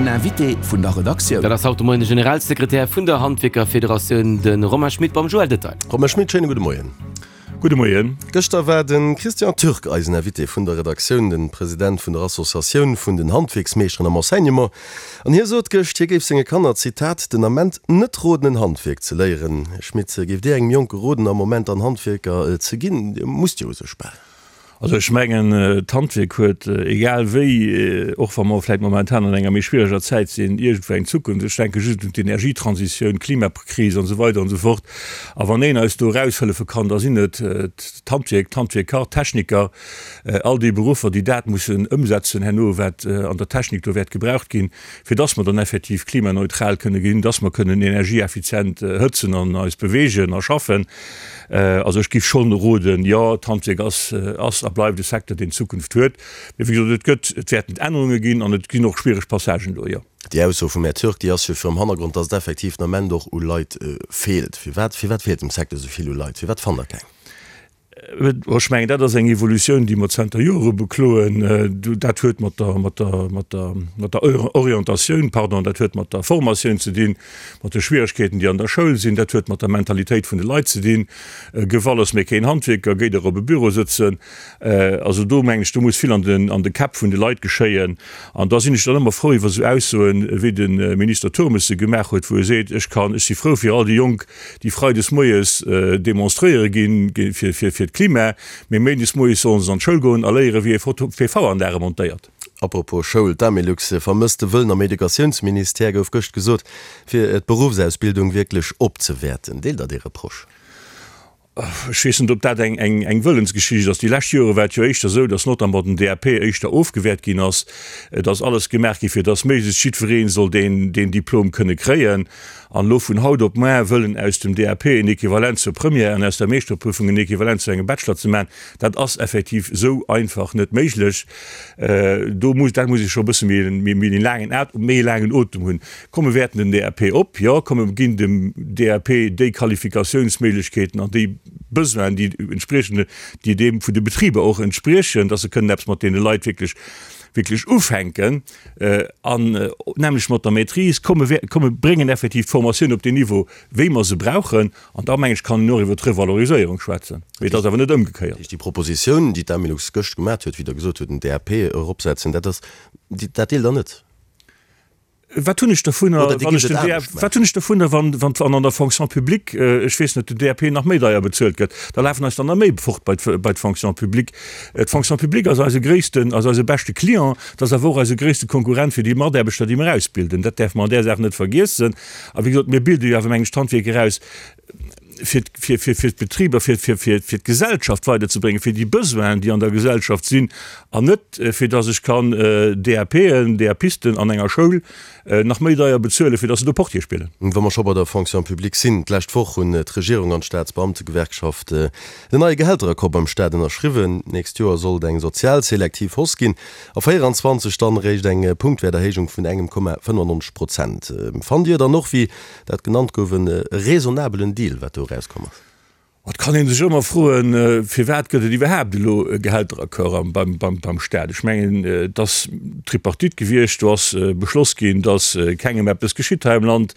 Den Invité vun der Redaktioun. Dat ass haut de Moien de Generalsekretär vun der Handwierkerfederatioun, de Romain Schmit beim Joël Detail. Romain Schmit, schéine gudde Moien. Gudde Moien. Gëschter war de Christian Türk eisen Invité vun der Redaktioun, de President vun der Associatioun vun den Handwierksmeeschteren am Enseignement. An hie sot gëscht, hie géif senge Kanner, Zitat, den Ament net roden en Handwierk ze léieren. Här Schmit, géift Dir engem Jonke roden am Moment dann Handwierker ze ginn? Dir musst jo u sech bal. Also ech mengen, d'Handwierk huet, egal wéi, och wa mer vläicht momentan an enger méi schwiereger Zäit sinn, iergendwou eng Zukunft. Ech denke just un d'Energietransitioun, d'Klimakris an esou weider an esou fort. A wann een eis do eraushëllefe kann, da sinn et d'Handwierk, d'Handwierker, d'Techniker, all déi Beruffer, déi dat mussen ëmsetzen herno, wat an der Technik do wäert gebraucht ginn, fir dass mer dann effektiv klimaneutral kënne ginn, dass mer kënnen energieeffizient hëtzen an eis beweegen a schaffen. Also ech géif schonn roden, jo, d'Handwierk ass, ass a bleift e Secteur, deen Zukunft huet. Mee wéi gesot, et gëtt, et wäerten Ännerunge ginn an et ginn och schwiereg Passagen do, jo. Déi Ausso vum Här Türk, déi ass jo virum Hannergrond, datt et effektiv den Ament och u Leit feelt. Firwat, firwat feelt dem Secteur esou vill u Leit? Firwat fannt Der keng? Ech mengen, dat ass eng Evolutioun, déi mer zanter Jore bekloen. Dat huet mat der, mat der, mat der, mat der Orientatioun, pardon, dat huet mat der Formatioun ze dinn, mat de Schwieregkeeten, déi an der Schoul sinn. Dat huet mat der Mentalitéit vun de Leit ze dinn. Gëff alles, mee keen Handwierker, géi der op e Büro sëtzen. Also do mengen ech, do muss vill an den, an de Käpp vun de Leit geschéien. An da sinn ech dann ëmmer frou iwwer esou Aussoen, wéi de Minister Turmes se gemaach huet, wou e seet, Ech kann, ech si frou fir all déi Jonk, déi freides moies demonstréiere ginn fir d'Klima, mee méindes moies sollen se an d'Schoul goen a léieren, wéi ee PV-Anlage montéiert. Apropos Schoul, D'Amelux vermësst de Wëllen am Educatiounsministère, gouf gëscht gesot, fir d'Beruffsausbildung wierklech opzewäerten. Deelt Der dee Reproche? Ech weess net, ob dat eng Wëllensgeschicht ass. Déi lescht Jore war et jo éischter esou, datt notamment den DAP éischter ofgewäert ginn ass. Et ass alles gemaach gi fir datt méiglechst jiddweree soll deen Diplom kënne kréien. An elo vun haut op muar wëllen aus dem DAP en Equivalent zur Première an aus der Meeschterprüfung en Equivalent zu engem Bachelor ze maachen, dat ass effektiv esou einfach net méiglech. Do muss, dat muss ee scho e bësse méi méi laangen méi e laangen Otem hunn. Komm mir wäerten den DAP op, jo, komm mir ginn dem DAP déi Qualifikatiounsméiglechkeeten an déi Besoinen, déi entspriechen, déi deem vun de Betriber och entspriechen, dass se kënnen eppes mat deene Leit wierklech, wierklech ufänken an nämlech mat der Maîtrise. Komm mir, komm mir bréngen effektiv d'Formatioun op deen Niveau, wéi mer se brauchen. An da, meng ech, kann een och iwwert d'Revaloriséierung schwätzen. Mee et ass awer net ëmgekéiert. Déi Propositioun, déi d'Amelux gëscht gemat huet, wéi Der gesot hutt, den DAP eropsetzen, dat ass, dat deelt Der net? Wat hunn ech dovunner, wann ech den DAP, wat hunn ech dovunner, wann, wann, wann an der Fonction publique, ech weess net, den DAP nach méi deier bezuelt gëtt? Da lafen eis der nach méi fort bei bei d'Fonction publique. D'Fonction publique ass eise gréissten, ass eise beschte Client, et ass awer och eise gréisste Konkurrent fir déi Mataarbechter, déi mer ausbilden. Dat däerfe mer an där Saach net vergiessen. A wéi gesot, mir bilde jo awer, mengen ech, d'Handwierker aus, fir, fir, fir, fir d'Betriber, fir, fir, fir, fir d'Gesellschaft weiderzebréngen, fir déi Besoinen, déi an der Gesellschaft sinn, an net fir dass ech kann DAPen, DAPisten an enger Schoul nach méi deier bezuelen, fir dass se do Portier spillen. Wa mer scho bei der Fonction publique sinn, D'lescht Woch hunn d'Regierung an d'Staatsbeamtegewerkschaft den neie Gehälteraccord beim Staat ënnerschriwwen. D'nächst Joer soll et eng sozial selektiv Hausse ginn, a 24 dann eréischt eng Punktwäerterhéijung vun engem Komma 95 Prozent. Fannt Dir dann och, wéi Dat genannt gouf, e raisonnabelen Deal, wat do erauskomm ass. Et kann ee sech ëmmer froen, firwat gëtt et iwwerhaapt elo e Gehälteraccord beim Staat? Ech mengen, et ass Tripartite gewiescht, do ass beschloss ginn, datt kengem eppes geschitt hei am Land.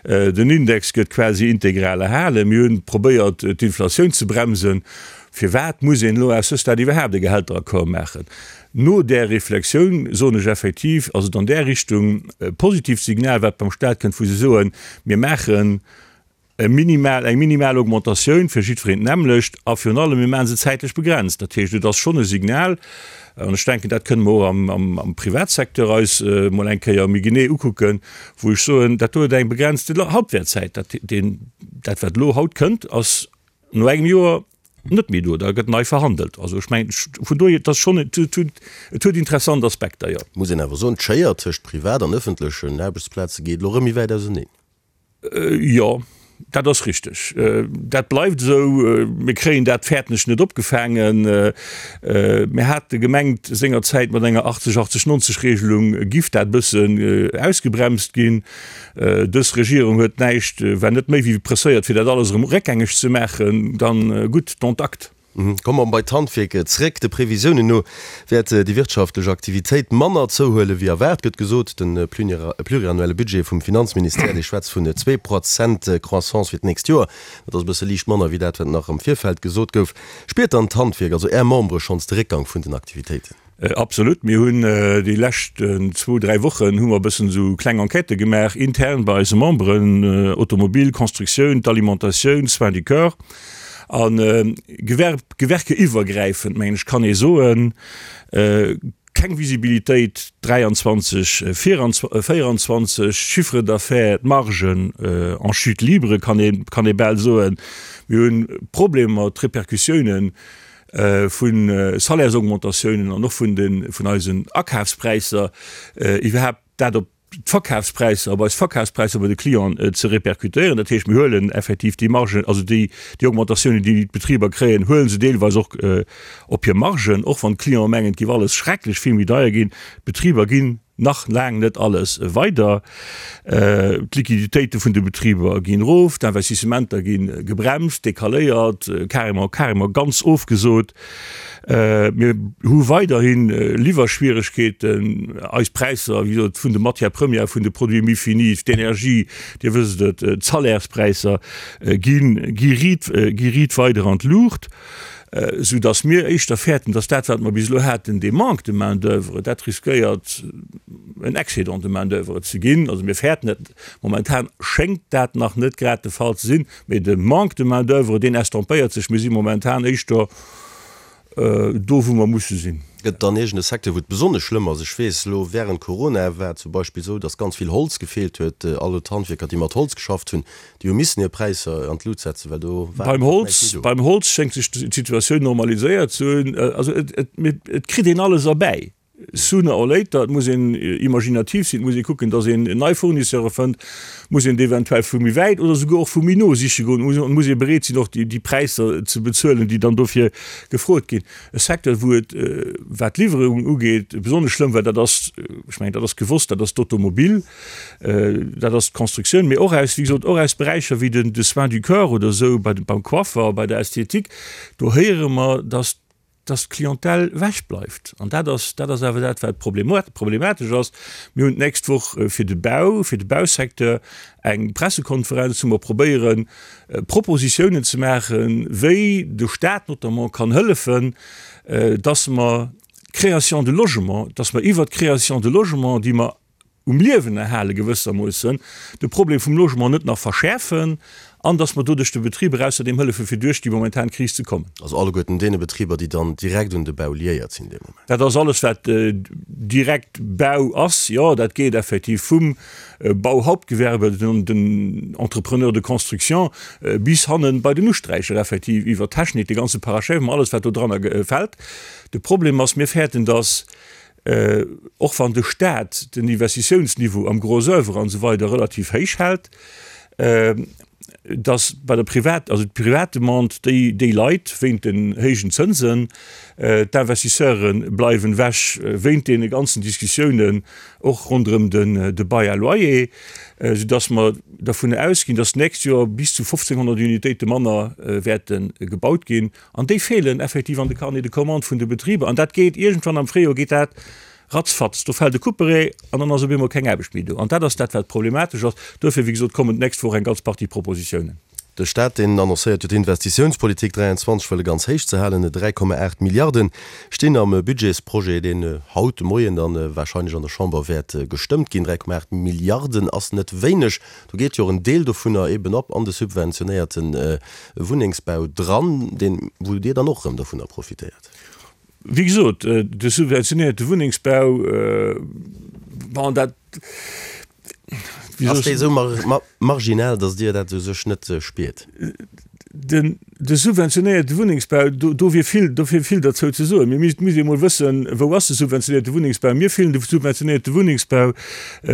Den Index gëtt quasi integral erhalen. Mir hunn probéiert, d'Inflatioun ze bremsen. Firwat muss een elo à ce stade iwwerhaapt e Gehälteraccord maachen? No där Reflexioun soen ech effektiv, ass et an där Richtung e positivt Signal, wat beim Stat kënnt, wou se soen, mir maachen e minimal, eng minimal Augmentatioun fir jiddwereen d'nämmlecht a virun allem, mir maache se zäitlech begrenzt. Dat heescht, et ass schonn e Signal, an ech denken, dat kënne mer och am, am, am Privatsecteur eis emol eng Kéier méi genee ukucken, wou ech soen, dat do huet eng begrenzte Halbwertzäit. Dat, deen, dat wat elo haut kënnt, ass no engem Joer net méi do, da gëtt nei verhandelt. Also ech mengen, vun dohier, et ass schonn, et huet, et huet interessant Aspekter, jo. Muss een awer soen, d'Schéier tëscht Privat an ëffentlechen Aarbechtsplaze geet elo erëm méi wäit auseneen. Jo, dat ass richteg. Dat bleift esou. Mir kréien dat, fäerten ech, net opgefaangen. Mir hate gemengt sengerzäit, mat enger 80, 80, 90 Regelung giff dat e bëssen ausgebremst ginn. Dës Regierung huet näischt, war net méi wéi presséiert, fir dat alles erëm réckgängeg ze maachen. Dann gutt, dont acte. Komme mer bei d'Handwierk zréck. De Previsiounen no wäert déi wirtschaftlech Aktivitéit manner zouhuele wéi erwaart, gëtt gesot. De pluriannuelle Budget vum Finanzministère, dee schwätzt vun 2 Prozent Croissance fir d'nächst Joer. Dat ass e bësse liicht manner wéi dat, wat nach am Virfeld gesot gouf. Spiert dann d'Handwierk, also Är Membere, schonns de Réckgang vun den Aktivitéiten? Absolut. Mir hunn déi lescht zwou, dräi Wochen hu mer e bëssen esou kleng Enquêtë gemaach intern bei eise Memberen, Automobil, Constructioun, d'Alimentatioun, Soins du corps a Gewerb, gewerkeiwwergräifend, mengen ech, kann ee soen, keng Visibilitéit 23, 24, Chiffre d'affaires, d'Margen en chute libre, kann ee, kann ee bal soen. Mir hunn Problemer, d'Repercussiounen vu Salaires-Augmentatiounen an och vun de vun eisen Akafspräisser iwwerhaapt dat op d'Verkafspräisser, op eis Verkafspräisser bei de Clienten ze répercutéieren. Dat heescht, mir huelen effektiv déi Margen, also déi déi Augmentatiounen, déi d'Betriber kréien, huele se deelweis och op hir Margen, och wann d'Clienten mengen, et géif alles schrecklech vill méi deier ginn. D'Betriber ginn nach laang net alles weider. D'Liquiditéite vun de Betriber ginn erof, d'Investissementer gi gebremst, decaléiert, carrément, carrément ganz ofgesot. Mir hu weiderhi Liwwerschwieregkeeten. Eis Präisser, wéi gesot, vun de Matières premières, vun de Produits mi-finis, d'Energie, Dir wësst et, d'Salärspräisser gi gi riit, gi riit weider an d'Luucht. Sou dass mir éischter fäerten, dass dat, wat mer bis elo haten, dee Manque de main-d'oeuvre, dat riskéiert en Excédent de main-d'oeuvre ze ginn. Also mir fäerten et. Momentan schéngt dat nach net grad de Fall ze sinn, mee de Manque de main-d'oeuvre, deen estompéiert sech. Mir si momentan éischter do, wou mer musse sinn. Gëtt et dann iergend e Secteur, wou et besonnesch schlëmm ass? Ech weess elo, wärend Corona war et zum Beispill esou, dass ganz vill Holz gefeelt huet. All d'Handwierker, déi mat Holz geschafft hunn, Déi hu missen hir Präisser an d'Lut setzen, well do war Beim Holz, näischt méi do. Beim Holz schéngt sech d'Situatioun normaliséiert ze hunn. Also et, et, et kritt een alles erbäi, sooner or later. Et muss een imaginativ sinn, et muss ee kucken, datt een nei Fournisseure fënnt, muss een eventuell vu méi wäit oder souguer och vu méi no siche goen, et muss ee bereet sinn, och déi, déi Präisser ze bezuelen, déi dann dofir gefrot ginn. E Secteur, wou et, wat d'Liwwerungen ugeet, besonnesch schlëmm war, dat ass, ech mengen, dat ass gewosst, dat ass d'Automobil. Dat ass d'Constructioun, mee och aus, wéi gesot, och aus Beräicher wéi den, de Soins du corps oder esou, bei beim Coiffer, bei der Esthétique, do héiere mer, dass, dass d'Clientèle ewechbleift. An dat ass, dat ass awer dat, wat problematesch ass. Mir hunn d'nächst Woch fir de Bau, fir de Bausecteur eng Pressekonferenz, wou mer probéieren, Propositiounen ze maachen, wéi de Stat notamment kann hëllefen, dass mer d'Création de logements, dass mer iwwert d'Création de logements, déi mer um Liewen erhale gewëssermoossen, de Problem vum Logement net nach verschäerfen an datt mer doduerch de Betriber ausserdeem hëllefe fir duerch déi momentan Kris ze kommen. Also alleguerten deene Betriber, déi dann direkt un de Bau liéiert sinn dee Moment. Dat ass alles wat direkt Bau ass, jo. Dat geet effektiv vum Bauhauptgewerbe, den Entrepreneur de construction bis hannen bei den Usträicher effektiv iwwer d'Technik, de ganze Parachèvement, alles wat do dranner fält. De Problem ass, mir fäerten, datt och wann de Staat den Investitiounsniveau am Gros oeuvre an esou weider relativ héich hält, datt bei der Privat, also d'Privatdemande, déi, déi leit wéint den héijen Zënsen, d'Investisseure bleiwen ewech wéint deene ganzen Diskussiounen och ronderëm den de Bail à loyer, soudatt mer dervun ausginn, datt d'nächst Joer bis zu 1.500 Unitéite manner wäerte gebaut ginn. An déi feelen effektiv an de Carnets de commandes vun de Betriber. An dat geet iergendwann am Fréijoer geet dat ratzfatz. Do fält e Couperet an dann ass op eemol keng Aarbecht méi do. An dat ass dat, wat problematesch ass. Duerfir, wéi gesot, kommen d'nächst Woch eng ganz Partie Propositiounen. De Staat, deen annoncéiert jo d'Investitiounspolitik 23 wëlle ganz héich ze halen. 3,8 Milliarde stinn am Budgetsprojet, deen haut de Moien dann warscheinlech an der Chamber wäert gestëmmt ginn. 3,8 Milliarden ass net wéineg. Do geet jo och en Deel dovunner eben op an de subventionéierte Wunnengsbau dran, deen, wou Dir dann och erëm dovunner profitéiert. Wéi gesot, de subventionéierte Wunnengsbau, bon, dat, wéi soll ech. Ass dee esou marginal, datt Dir dat u sech net spiert? Den, de subventionéierte Wunnengsbau, do, do wier vill, do wier vill derzou ze soen. Mir misst, misst ee mol wëssen, wou ass de subventionéierte Wunnengsbau? Mir fillen de subventionéierte Wunnengsbau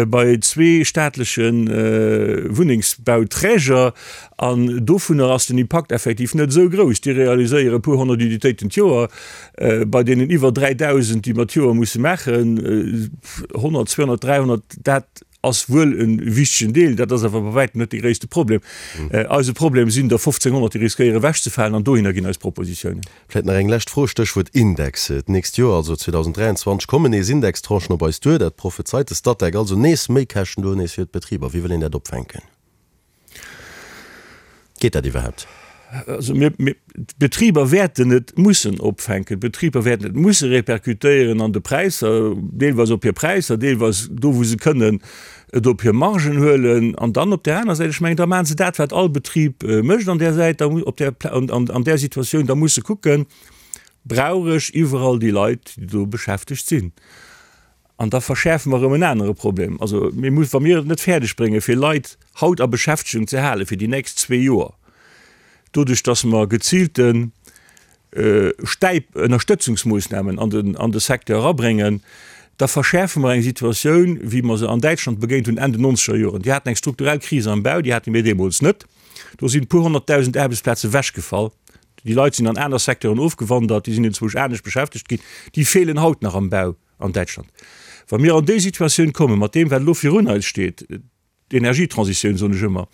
bei zwee staatleche Wunnengsbauträger an dovunner ass den Impakt effektiv net esou grouss. Déi realiséiere e puer honnert Unitéiten d'Joer. Bei deenen iwwer 3.000, déi mer d'Joer musse maachen, 100, 200, 300, dat. Ass wuel e wichtegen Deel, dat ass awer bei wäitem net de gréisste Problem. Eise Problem sinn der 1.500, déi riskéiere ewechzefalen, an dohinner ginn eis Propositiounen. Vläicht nach eng lescht Fro, Stéchwuert Index. D'nächst Joer, also 2023, kommen nees Indextranchen op eis duer. Dat prophezeit de Statec. Also nees Méikäschten do nees fir d'Betriber. Wéi wëll een dat opfänken? Geet dat iwwerhaapt? Also mir, mir, d'Betriber wäerten et mussen opfänken. D'Betriber wäerten et musse repercutéieren an de Präisser, deelweis op hir Präisser, deelweis do wou se kënnen et op hir Margen huelen. An dann op där aner Säit, ech mengen, da maache se dat wat all Betrib mécht an där Säit, da op där, an, an där Situatioun, da muss se kucken, Brauch ech iwwerall déi Leit, déi do beschäftegt sinn? An da verschäerfe mer erëm en anere Problem. Also mir muss, wa mir et net fäerdeg bréngen, fir Leit haut a Beschäftegung ze halen fir déi nächst zwee Joer, doduerch datt mer geziilte Stäip, Ënnerstëtzungsmoossnamen an den, an de Secteur erabréngen, da verschäerfe mer eng Situatioun, wéi mer se an Däitschland begéint hunn Enn den nonzeger Joren. Déi haten eng strukturell Kris am Bau, déi hate mir deemools net. Do sinn e puer honnertdausend Aarbechtsplaze ewechgefall. Déi Leit sinn an aner Secteuren ofgewandert, déi sinn enzwousch anescht beschäftegt ginn. Déi feelen haut nach am Bau an Däitschland. Wa mir an déi Situatioun kommen, mat deem, wat elo virun eis steet, d'Energietransitioun, soen ech ëmmer,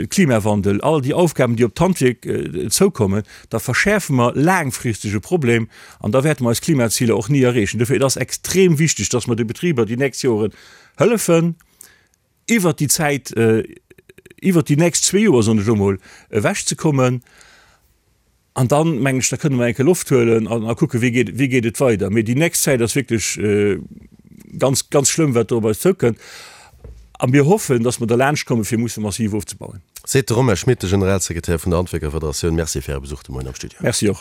Klimawandel, all déi Aufgaben, déi op d'Handwierk zoukommen, da verschäerfe mer laangfristeg e Problem an da wäerte mer eis Klimaziler och ni erreechen. Dofir, et ass extrem wichteg, dass mer de Betriber déi nächst Joren hëllefen, iwwert déi Zäit, iwwert déi nächst zwee Joer, soen ech elo mol, ewechzekommen. An dann, mengen ech, da kënne mer eng Kéier Loft huelen an a kucken, wéi geet, wéi geet et weider. Mee déi nächst Zäit ass wierklech ganz, ganz schlëmm, wat do op eis zoukënnt. A mir hoffen, dass mer derlaanscht kommen, fir musse massiv ofzebauen. Seet de Romain Schmit, de Generalsekretär vun der Handwierkerfederatioun. Merci fir Äre Besuch de Moien am Studio. Merci och.